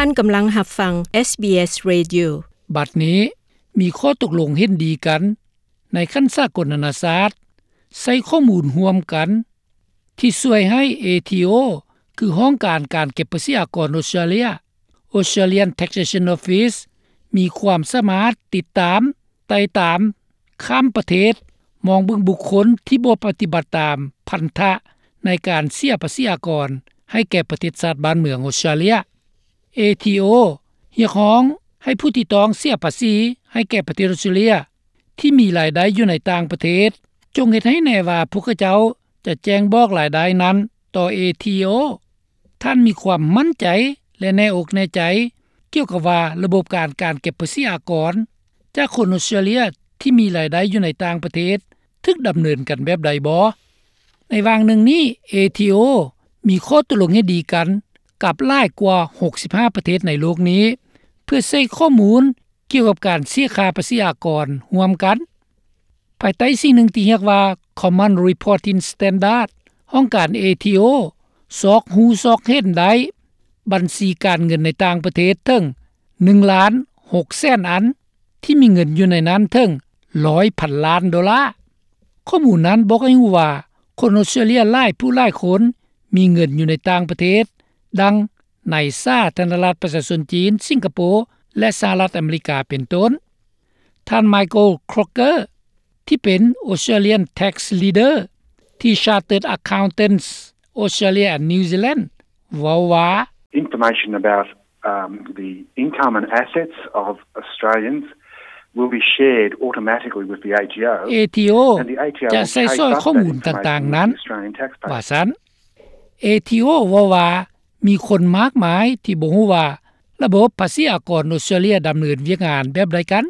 ທ່ານກຳລັງຮັບຟັງ SBS Radio. ບັດນີ້ມີຂໍ້ຕົກລົງເຫັນດີກັນໃນຂັ້ນສາກົນນານາຊາດ ໃຊ້ຂໍ້ມູນຮ່ວມກັນທີ່ຊ່ວຍໃຫ້ ເອທີໂອ ຄືຫ້ອງການການເກັບພາສີອາກອນອົດສະຕຣາເລຍ Australian Taxation Office ມີຄວາມສາມາດຕິດຕາມ ໄຕ່ຕາມ ຂ້າມປະເທດ ມອງເບິ່ງບຸກຄົນທີ່ບໍ່ປະຕິບັດຕາມພັນທະໃນການເສຍພາສີອາກອນໃຫ້ແກ່ປະເທດຊາດບ້ານເມືອງອົດສະຕຣາເລຍ. ເອທີໂອ ຮຽກຮ້ອງໃຫ້ຜູ້ທີ່ຕ້ອງເສຍພາສີໃຫ້ແກ່ປະເທດອົດສະຕຣາເລຍ ທີ່ມີລາຍໄດ້ຢູ່ໃນຕ່າງປະເທດ ຈົ່ງເຮັດໃຫ້ແນ່ວ່າພວກເຂົາເຈົ້າຈະແຈ້ງບອກລາຍໄດ້ນັ້ນຕໍ່ ເອທີໂອ. ທ່ານມີຄວາມໝັ້ນໃຈ ແລະ ແນ່ອົກແນ່ໃຈ ກ່ຽວກັບວ່າລະບົບການ ການເກັບພາສີອາກອນຈາກຄົນອົດສະຕຣາເລຍທີ່ມີລາຍໄດ້ຢູ່ໃນຕ່າງປະເທດ ຖືກດຳເນີນກັນແບບໃດບໍ່? ໃນຫວ່າງໜຶ່ງນີ້ ເອທີໂອ ມີຂໍ້ຕົກລົງເຫັນດີກັນກັບຫຼາຍກວ່າຫົກສິບຫ້າປະເທດໃນໂລກນີ້ ເພື່ອໃຊ້ຂໍ້ມູນ ກ່ຽວກັບການເສຍຄ່າພາສີອາກອນຮ່ວມກັນ ພາຍໃຕ້ສິ່ງໜຶ່ງທີ່ຮຽກວ່າ Common Reporting Standard ຫ້ອງການ ເອທີໂອ ຊອກຮູ້ຊອກເຫັນໄດ້ບັນຊີການເງິນໃນຕ່າງປະເທດເຖິງໜຶ່ງລ້ານຫົກແສນອັນ ທີ່ມີເງິນຢູ່ໃນນັ້ນເຖິງຮ້ອຍພັນລ້ານໂດລາ. ຂໍ້ມູນນັ້ນບອກໃຫ້ຮູ້ວ່າ ຄົນອົດສະຕຣາເລຍຫຼາຍຜູ້ຫຼາຍຄົນມີເງິນຢູ່ໃນຕ່າງປະເທດ ດັ່ງໃນສາທາລະນະລັດປະຊາຊົນຈີນ, ສິງກະໂປ ແລະ ສະຫະລັດອາເມລິກາເປັນຕົ້ນ. ທ່ານ Michael Croker ທີ່ເປັນ Australian Tax Leader ທີ່ Chartered Accountants Australia and New Zealand ເວົ້າວ່າ Information about, um, the income and assets of Australians will be shared automatically with the ເອທີໂອ and the ເອທີໂອ ຈະໃຊ້ສອຍຂໍ້ມູນຕ່າງໆນັ້ນ Australian taxpayer ວ່າຊັ້ນ. ເອທີໂອ ເວົ້າວ່າ ມີຄົນມາກມາຍທີ່ບໍ່ຮູ້ວ່າລະບົບພາສີອາກອນອົດສະຕຣາເລຍດຳເນີນວຽກງານແບບໃດກັນ.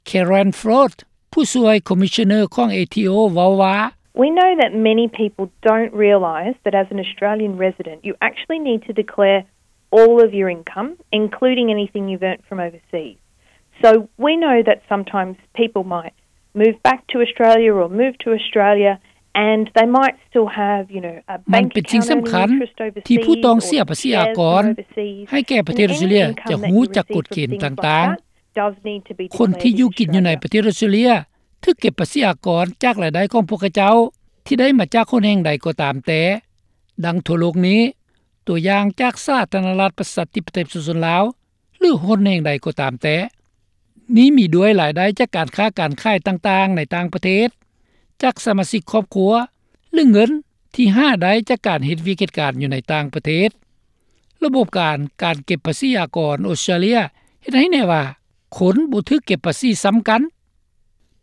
Karen Flood ຜູ້ຊ່ວຍ Commissioner ຂອງ ເອທີໂອ ເວົ້າວ່າ We know that many people don't realise that as an Australian resident, you actually need to declare all of your income, including anything you've earned from overseas. So we know that sometimes people might move back to Australia or move to Australia and they might still have, you know, a ມັນເປັນສິ່ງສຳຄັນທີ່ຜູ້ຕ້ອງເສຍພາສີອາກອນໃຫ້ແກ່ປະເທດອົດສະຕຣາເລຍຈະຮູ້ຈັກກົດເກນຕ່າງໆ. ຄົນທີ່ຢູ່ກິນຢູ່ໃນປະເທດອົດສະຕຣາເລຍຖືກເກັບພາສີອາກອນຈາກລາຍໄດ້ຂອງພວກເຂົາເຈົ້າທີ່ໄດ້ມາຈາກຫົນແຫ່ງໃດກໍຕາມແຕ່ ດັ່ງທົ່ວໂລກນີ້, ຕົວຢ່າງຈາກສາທາລະນະລັດປະຊາທິປະໄຕປະຊາຊົນລາວ ຫຼື ຫົນແຫ່ງໃດກໍຕາມແຕ່. ນີ້ມີດ້ວຍລາຍໄດ້ຈາກການຄ້າການຂາຍຕ່າງໆໃນຕ່າງປະເທດ, ຈາກສະມາຊິກຄອບຄົວ ຫຼື ເງິນທີ່ຫາໄດ້ຈາກການເຮັດວຽກເຮັດການຢູ່ໃນຕ່າງປະເທດ. ລະບົບການ ການເກັບພາສີອາກອນອົດສະຕຣາເລຍເຮັດໃຫ້ແນ່ວ່າ ຄົນບໍ່ຖືກເກັບພາສີຊ້ຳກັນ.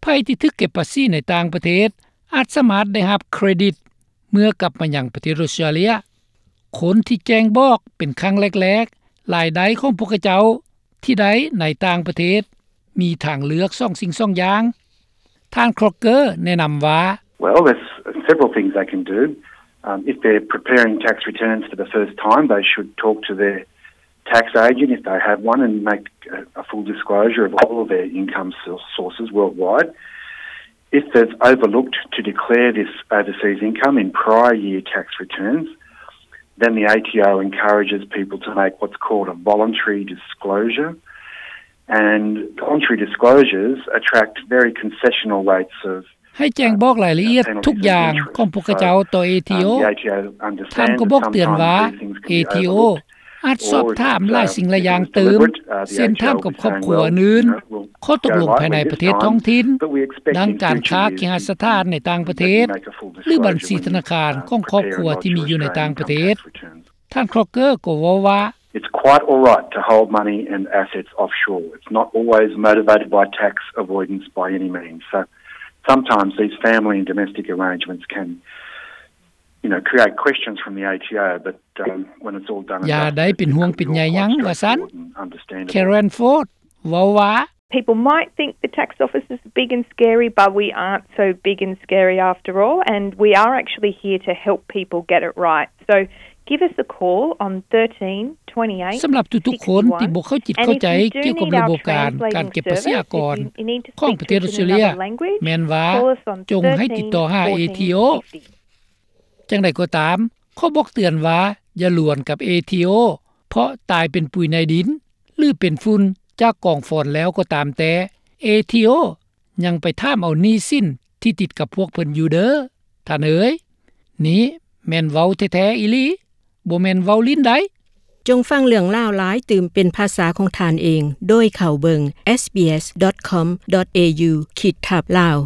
ໃຜທີ່ຖືກເກັບພາສີໃນຕ່າງປະເທດ ອາດສາມາດໄດ້ຮັບເຄຣດິດເມື່ອກັບມາຍັງປະເທດອົດສະຕຣາເລຍ. ຄົນທີ່ແຈ້ງບອກເປັນຄັ້ງແລກໆ ລາຍໄດ້ຂອງພວກເຂົາເຈົ້າທີ່ໄດ້ໃນຕ່າງປະເທດ ມີທາງເລືອກສອງສິ່ງສອງຢ່າງ. ທ່ານ Crocker ແນະນຳວ່າ Well, there's several things they can do. Um, if they're preparing tax returns for the first time, they should talk to their tax agent, if they have one, and make a, a full disclosure of all of their income sour-, sources worldwide. If they've overlooked to declare this overseas income in prior year tax returns, then the A T O encourages people to make what's called a voluntary disclosure. And voluntary disclosures attract very concessional rates of ໃຫ້ແຈ້ງບອກລາຍລະອຽດທຸກຢ່າງຂອງພວກເຂົາເຈົ້າຕໍ່ ເອທີໂອ. ທ່ານກໍບອກເຕືອນວ່າ ເອທີໂອ ອາດສອບຖາມຫຼາຍສິ່ງຫຼາຍຢ່າງຕື່ມ ເຊັ່ນຖາມກັບຄອບຄົວອື່ນ, ຂໍ້ຕົກລົງພາຍໃນປະເທດທ້ອງຖິ່ນ, ດັ່ງການຄ້າເຄຫະສະຖານໃນຕ່າງປະເທດ ຫຼື ບັນຊີທະນາຄານຂອງຄອບຄົວທີ່ມີຢູ່ໃນຕ່າງປະເທດ. ທ່ານ Crocker ກໍເວົ້າວ່າ It's quite all right to hold money and assets offshore. It's not always motivated by tax avoidance by any means. So sometimes these family and domestic arrangements can, you know, create questions from the A T O, but, um, when it's all done and dusted, ຢ່າໄດ້ເປັນຫ່ວງເປັນໃຍຫຍັງ ວ່າຊັ້ນ. Karen Flood ເວົ້າວ່າ People might think the tax office is big and scary, but we aren't so big and scary after all, and we are actually here to help people get it right. So give us a call on thirteen twenty-eight sixty-one. ສຳລັບທຸກໆຄົນທີ່ບໍ່ເຂົ້າຈິດເຂົ້າໃຈກ່ຽວກັບລະບົບການ ການເກັບພາສີອາກອນຂອອງປະເທດອົດສະຕຣາເລຍ ແມ່ນວ່າຈົ່ງໃຫ້ຕິດຕໍ່ຫາ ເອທີໂອ. ຢ່າງໃດກໍຕາມ, ຂໍບອກເຕືອນວ່າຢ່າລວນກັບ ເອທີໂອ ເພ ພາະຕາຍເປັນປຸຍໃນດິນ ຫຼື ເປັນຝຸ່ນຈາກກອງຟອນແລ້ວກໍຕາມແຕ່ ເອທີໂອ ຍັງໄປຖາມເອົາໜີ້ສິນທີ່ຕິດກັບພວກເພິ່ນຢູ່ເດີ ທ່ານເອີຍ. ນີ້ແມ່ນເວົ້າແທ້ໆອີ່ຫຼີ ບໍ່ແມ່ນເວົ້າຫຼິ້ນໃດ໋. ຈົ່ງຟັງເລື່ອງລາວຫຼາຍຕື່ມເປັນພາສາຂອງທ່ານເອງ ໂດຍເຂົ້າເບິ່ງ sbs.com.au/lao